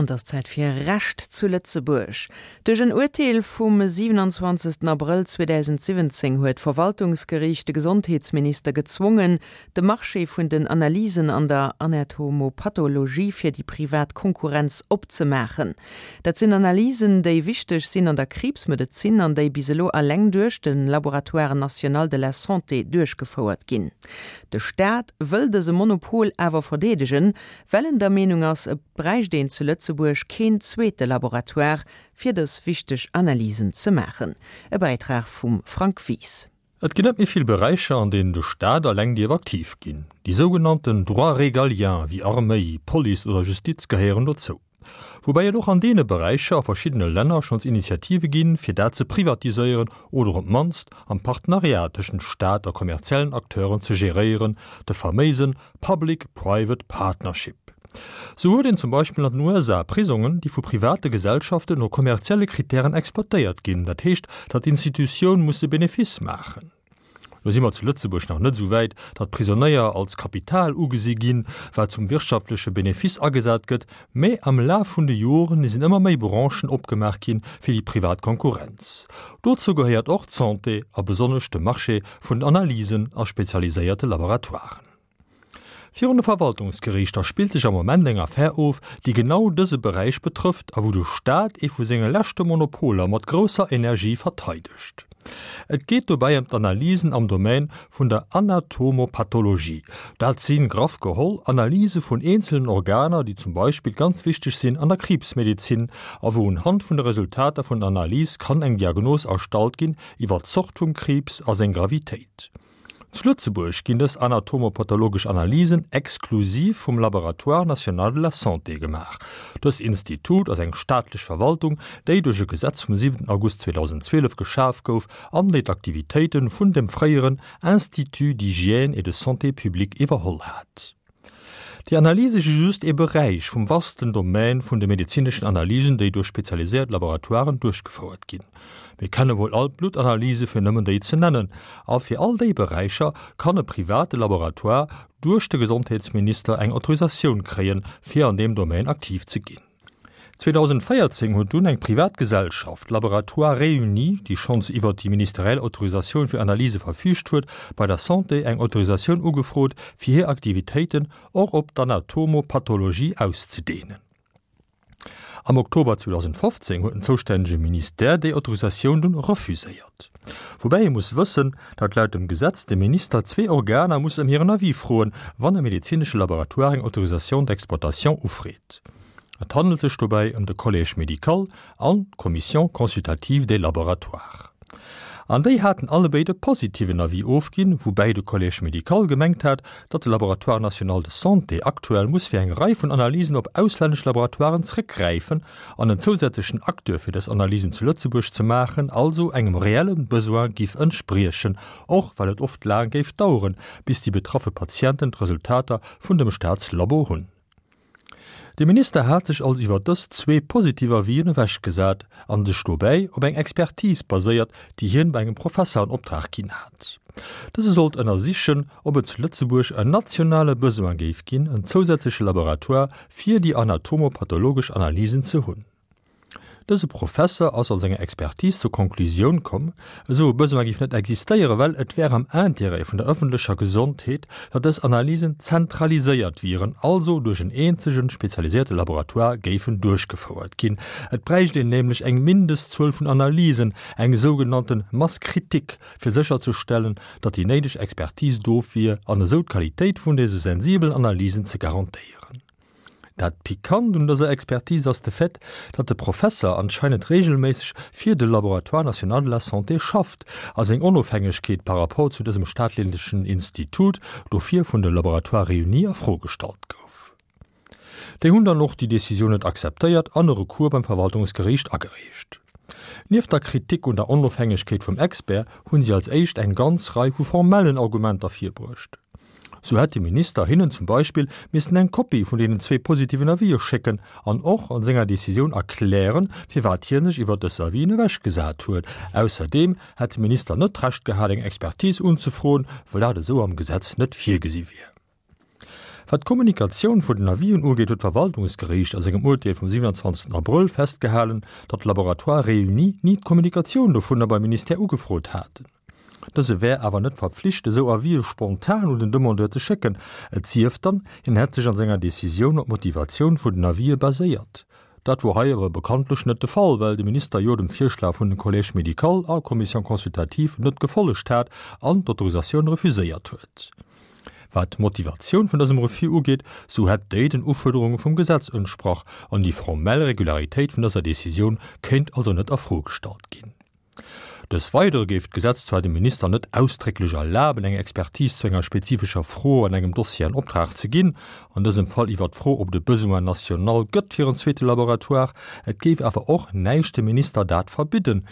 An et ass Zäit fir Recht zu Lëtzebuerg. Duerch en Urteel vum 27 Abrëll 2017 huet d'Verwaltungsgeriicht de Gesondheetsminister gezwongen, de Marché vun den Analysen an der Anatomopathologie fir déi privat Konkurrenz opzemaachen. Dat sinn Analysen, déi wichteg sinn an der Kriibsmedezin an déi bis elo eleng duerch de Laboratoire national de la santé duerchgefouert ginn. De Staat wëll dëse Monopol awer verdeedegen, well en der Meenung ass, et bräicht een zu Lëtzebuerg keen zweete Laboratoire, fir dës wichteg Analysen ze maachen. E Bäitrag vum Frank Wies. Et ginn net méi vill Beräicher, an deenen de Staat eleng dierf aktiv ginn. Déi sougenannten Droits régaliens wéi Arméi, Police oder Justiz gehéieren dozou. Woubäi et och an deene Beräicher a verschiddene Länner schonns Initiative ginn, fir dat ze privatiséieren oder op d'mannst am Partenariat tëschent Staat a kommerziellen Acteuren ze geréieren, de faméise Public-Private Partnership. Sou huet een zum Beispill an den USA Prisongen, déi vu private Gesellschaften no kommerzielle Kritären exploitéiert ginn, dat heescht, datt d'Institutioun muss e Benefice maachen. Lo si mer zu Lëtzebuerg nach net esou wäit, datt Prisonéier als Kapital ugesi ginn, wat zum wirtschaftleche Benefice agesat gëtt, mä am Laf vun de Joren sinn ëmmer méi Branchen opgemaach gi fir déi privat Konkurrenz. Dozou gehéiert och d'Santé a besonnesch de Marché vun den Analysen a spezialiséierte Laboratoiren. Virun de Verwaltungsgeriichter spillt sech am Moment eng Affär of, déi genau dëse Beräich betrëfft a wou de Staat ee vu senge leschte Monopoler mat grousser Energie verteidegt. Et geet dobäi ëm d'Analysen am Domaine vun der Anatomopathologie. Dat si graff geholl Analyse vun eenzelen Organer, déi zum Beispill ganz wichteg sinn an der Kriibsmedezin a wou unhand vun de Resultater vun der Analys kann eng Diagnos erstallt ginn iwwer d'Zort vum Kriibs a seng Gravitéit. Zu Lëtzebuerg ginn dës anatomopathologesch Analysen exklusiv vum Laboratoire national de la santé gemaach. Dëst Institut ass eng staatlech Verwaltung, déi duerch e Gesetz vum 7 August 2012 geschaf gouf an déi d'Aktivitéite vun dem fréieren Institut d'hygiène et de santé publique iwwerholl hat. Déi Analyse si just ee Beräich vum vasten Domän vun de medezineschen Analysen, déi duerch spezialiséiert Laboratoiren duerchgefouert ginn. Mir kenne wuel all d'Bluttanalyse fir nëmmen déi ze nennen. A fir all déi Beräicher kann e private Laboratoire duerch de Gesondheetsminister eng Autorisatioun kréien, fir an deem Domän aktiv ze ginn. 2014 huet dunn eng privat Gesellschaft, Laboratoires Réunis, déi schonns iwwert déi ministeriell Autorisatioun fir Analyse verfüügt huet, bei der Santé eng Autorisatioun ugefrot, fir hir Aktivitéiten och op d'Anatomopathologie auszedehnen. Am Oktober 2015 huet den zoustännege Ministère déi Autorisatioun dunn refuséiert. Woubäi ee muss wëssen, datt laut dem Gesetz de Minister zwee Organer muss ëm hiren Avis froen, wann e medezinesche Laboratoire eng Autorisation d'exploitation ufreet. Et handelt sech dobäi ëm de Collège médical an d'Commission consultative des laboratoires. An déi haten allebéid e positiven Avis ofginn, woubäi de Collège médical gemengt hat, datt de Laboratoire national de santé aktuell muss fir eng Rei vun Analysen op auslännesch Laboratoiren zréckgräifen an en zousätzlechen Acteur fir dës Analysen zu Lëtzebuerg ze maachen also engem reelle Besoin giff entspriechen, och well et oft laang géif daueren, bis déi betraffe Patienten d'Resultater vun dem Staatslabo hunn. De Minister hat sech also iwwer dës zwee positiv Avisen ewechgesat an sech dobäi op eng Expertise baséiert, déi hien bei engem Professer an Optrag ginn hat. Dëse sollt ënnersichen, ob et zu Lëtzebuerg en nationale Besoin géif ginn, en zousätzleche Laboratoire fir déi anatomopathologesch Analysen ze hunn. Dëse Professer ass a senger Expertise zur Konklusioun komm, esou e Besoin géif net existéieren, well et wär am Intérêt vun der ëffentlecher Gesondheet, datt dës Analysen zentraliséiert wieren, also duerch en eenzege spezialiséierte Laboratoire géifen duerchgefouert ginn. Et bräicht een nämlech eng Mindestzuel vun Analysen, eng sougenannte Masse critique, fir sécherzestellen, datt déi néideg Expertise do wier an esou d'Qualitéit vun dëse sensibelen Analysen ze garantéieren. Dat Pikant un dëser Expertise ass de Fait, datt de Professer anscheinend reegelméisseg fir de Laboratoire national de la santé schafft a seng Onofhängegkeet par rapport zu dësem staatlechen Institut dofir vun de Laboratoires réunis a Fro gestallt gouf. Déi hunn dann och déi Decisioun net akzeptéiert an e Recours beim Verwaltungsgeriicht agereecht. Nieft der Kritik un der Onofhängegkeet vum Expert hunn si als éischt eng ganz Rei vu formellen Argumenter virbruecht. Sou hätt de Minister hinnen zum Beispill missen eng Kopie vun deenen zwee positiven Avisë schécken an och an senger Decisioun erklären, firwat hie sech iwwer dës Avisen ewechgesat huet. Ausserdeem hätt de Minister net d'Recht gehat, eng Expertise unzefroen, well dat esou am Gesetz net virgesi wier. Wat d'Kommunikatioun vun den Avisen ugeet, huet d'Verwaltungsgeriicht a sengem Urteel vum 27 Abrëll festgehalen, datt d'Laboratoires réunis ni d'Kommunikatioun dovunner beim Ministère ugefrot haten. Dëse wär awer net verpflicht, esou Avise spontan un den Demandeur ze schécken, et sief dann, hien hätt sech an senger Decisioun op d'Motivatioun vun den Avise baséiert. Dat wor hei awer bekanntlech net de Fall, well de Minister jo dem Virschlag vun den Collège médical a Commission consultative net gefollegt hat an d'Autorisatioun refuséiert huet. Wat d'Motivatioun vun dësem Refus ugeet, sou hätt déi den Ufuerderunge vum Gesetz entsprach an déi formell Regularitéit vun dëser Decisioun kéint also net a Fro gestallt ginn. Dës Weidere géif d'Gesetz zwar dem Minister net ausdrécklech erlaben, eng Expertise zu enger spezifescher Fro an engem Dossier an Optrag ze ginn, an dësem Fall iwwert d'Fro, ob et e Besoin national gëtt fir en zweete Laboratoire. Et géif awer och näischt dem Minister dat verbidden,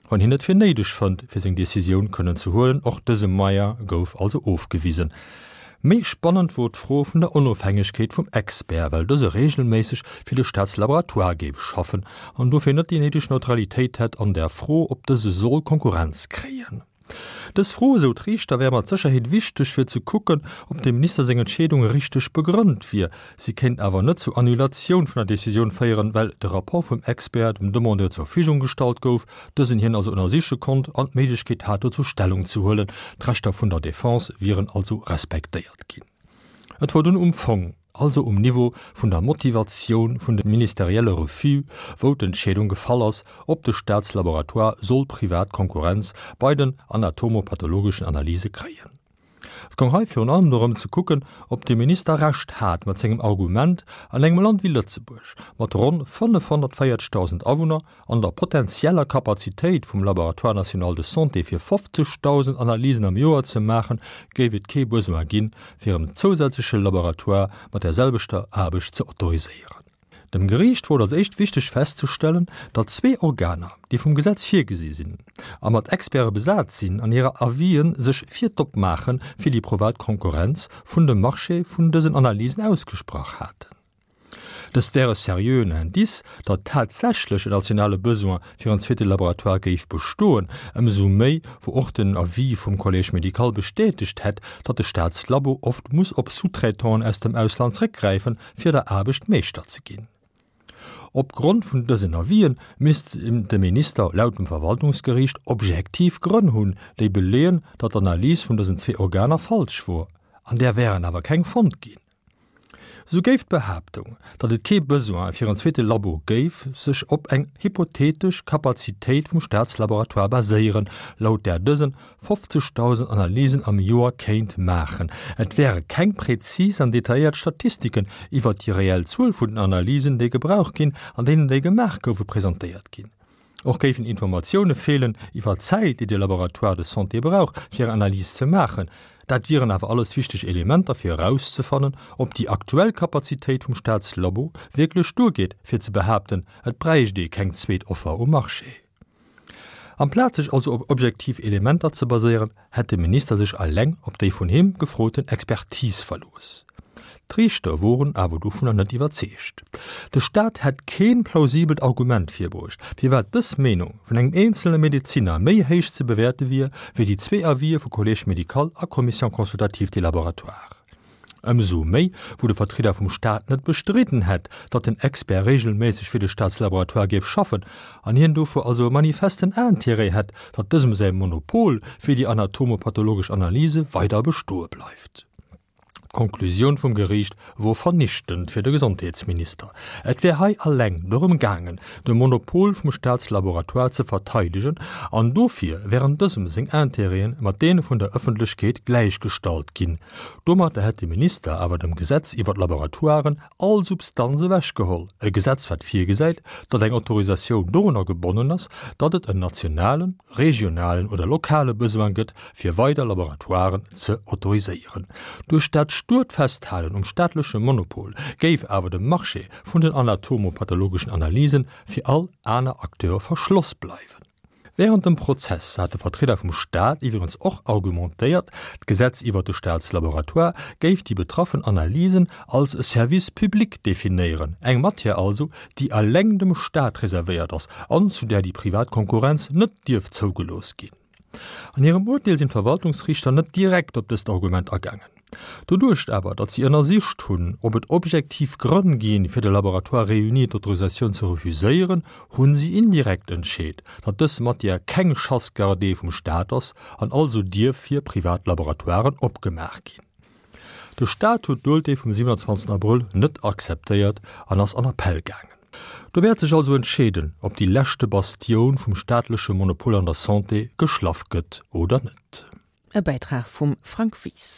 wann hien et fir néideg fënnt, fir seng Decisioun kënnen ze huelen. Och dëse Moyen gouf also ofgewisen. Méi spannend wor d'Fro vun der Onofhängegkeet vum Expert, well dëse regelméisseg fir de Staatslaboratoire géif schaffen an dofir net déi néideg Neutralitéit hätt an der Fro, ob dëse soll Konkurrenz kréien. Dës Fro, esou d'Riichter, wär mat Sécherheet wichteg fir ze kucken, ob dem Minister seng Entscheedung richteg begrënnt wier. Si kéint awer net zur Annulatioun vun der Decisioun féieren, well de Rapport vum Expert dem Demandeur zur Verfügung gestallt gouf, dësen hien also ënnersiche konnt an d'Méiglechkeet hat dozou Stellung ze huelen. D'Rechter vun der Defense wieren also respektéiert ginn. Et wor dunn um Fong, also um Niveau vun der Motivatioun vun de ministerielle Refus, wou d'Entscheedung gefall ass, ob de Staatslaboratoire soll privat Konkurrenz bei den anatomopathologeschen Analyse kréien. Et goung hei virun allem dorëm ze kucken, ob de Minister Recht hat mat sengem Argument, an engem Land wéi Lëtzebuerg, mat ronn 540.000 Awunner an der potenzieller Kapazitéit vum Laboratoire national de santé fir 50.000 Analysen am Joer ze maachen, géif et kee Besoin ginn, fir en zousätzleche Laboratoire mat där selwechter Aarbecht ze autoriséieren. Dem Geriicht wor et als éischt wichteg festzestellen, datt zwee Organer, déi vum Gesetz virgesi sinn a mat Experte besat sinn, an hire Avisen sech fir d'Opmaache fir déi privat Konkurrenz vun dem Marché vun dësen Analysen ausgesprach haten. Dëst wär e seriöen Indice, datt tatsächlech en nationale Besoin fir en zweete Laboratoire géif bestoen, ëmsou méi wou och den Avis vum Collège médical bestätegt hätt, datt de Staatslabo oft muss op Sous-traitanten aus dem Ausland zréckgräifen, fir der Aarbecht Meeschter ze ginn. Op Grond vun dësen Avisen misst de Minister laut dem Verwaltungsgeriicht objektiv Grënn hunn, déi beleeën, datt d'Analys vun dësen zwee Organer falsch wor. An där wären awer keng fonnt ginn. Sou géif d'Behaaptung, datt et kee Besoin fir en zweete Labo géif, sech op eng hypothetesch Kapazitéit vum Staatslaboratoire baséieren, laut där dësen 50.000 Analysen am Joer kéint maachen. Et wäre keng präzis an detailléiert Statistiken iwwert déi reell Zuel vun den Analysen, déi gebraucht ginn an deenen déi gemaach goufe presentéiert ginn. Och géifen Informatioune feelen iwwer d'Zäit, déi de Laboratoire de santé brauch, fir eng Analys ze maachen. Dat wieren awer alles wichteg Elementer fir erauszefannen, ob déi aktuell Kapazitéit vum Staatslabo wierklech duergeet, fir ze behaapten, et bräicht ee keng zweet Offer um Marché. Amplaz sech also op objektiv Elementer ze baséieren, hätt de Minister sech eleng op déi vun him gefroten Expertise verlooss. D'Riichter woren awer dovunner net iwwerzeegt. De Staat hätt keen plausibelt Argument virbruecht, firwat dës Meenung vun engem eenzelne Medezinner méi héich ze bewäerte wier, wéi déi zwee Avisë vu Collège médical a Commission consultative des laboratoires. Ëmsou méi, wou de Vertrieder vum Staat net bestridden hätt, datt den Expert regelméisseg fir de Staatslaboratoire géif schaffen an hien dofir also e manifesten Intérêt hätt, datt dësem säi Monopol fir déi anatomopathologesch Analyse weider bestoe bleift. D'Konklusioun vum Geriicht wor vernichtend fir de Gesondheetsminister. Et wär hei alleng dorëm gaangen, de Monopol vum Staatslaboratoire ze verteidegen an dofir wären dësem seng Intérêten mat deene vun der Ëffentlechkeet gläichgestallt ginn. Domatter hätt de Minister awer dem Gesetz iwwer d'Laboratoiren all Substanz ewechgeholl, e Gesetz wat virgesäit, datt eng Autorisatioun dorunner gebonnen ass, datt et en nationalen, regionalen oder lokale Besoin gëtt, fir weider Laboratoiren ze autoriséieren. Duerch dat stuert Festhalen um staatleche Monopol géif awer de Marché vun den anatomopathologeschen Analysen fir all aner Acteure verschloss bleiwen. Wärend dem Prozess hat de Vertrieder vum Staat iwwregens och argumentéiert, d'Gesetz iwwert de Staatslaboratoire géif déi betraffen Analysen als e Service public definéieren, eng Matière also, déi eleng dem Staat reservéiert ass an zu där déi privat Konkurrenz net dierf zougelooss ginn. An hirem Urteel sinn d'Verwaltungsriichter net direkt op dëst Argument agaangen. Doduerch awer, datt si ënnersicht hunn, ob et objektiv Grënn ginn, fir de Laboratoire Réuni d'Autorisatioun ze refuséieren, hu si indirekt entscheet, datt dës Matière keng Chasse gardée vum Staat ass an also dierf fir privat Laboratoiren opgemaach ginn. De Staat huet d'Urteel vum 27 Abrëll net akzeptéiert an ass an Appell gaangen. Do wäert sech also entscheeden, ob déi leschte Bastioun vum staatleche Monopol an der Santé geschlaff gëtt oder net. E Bäitrag vum Frank Wies.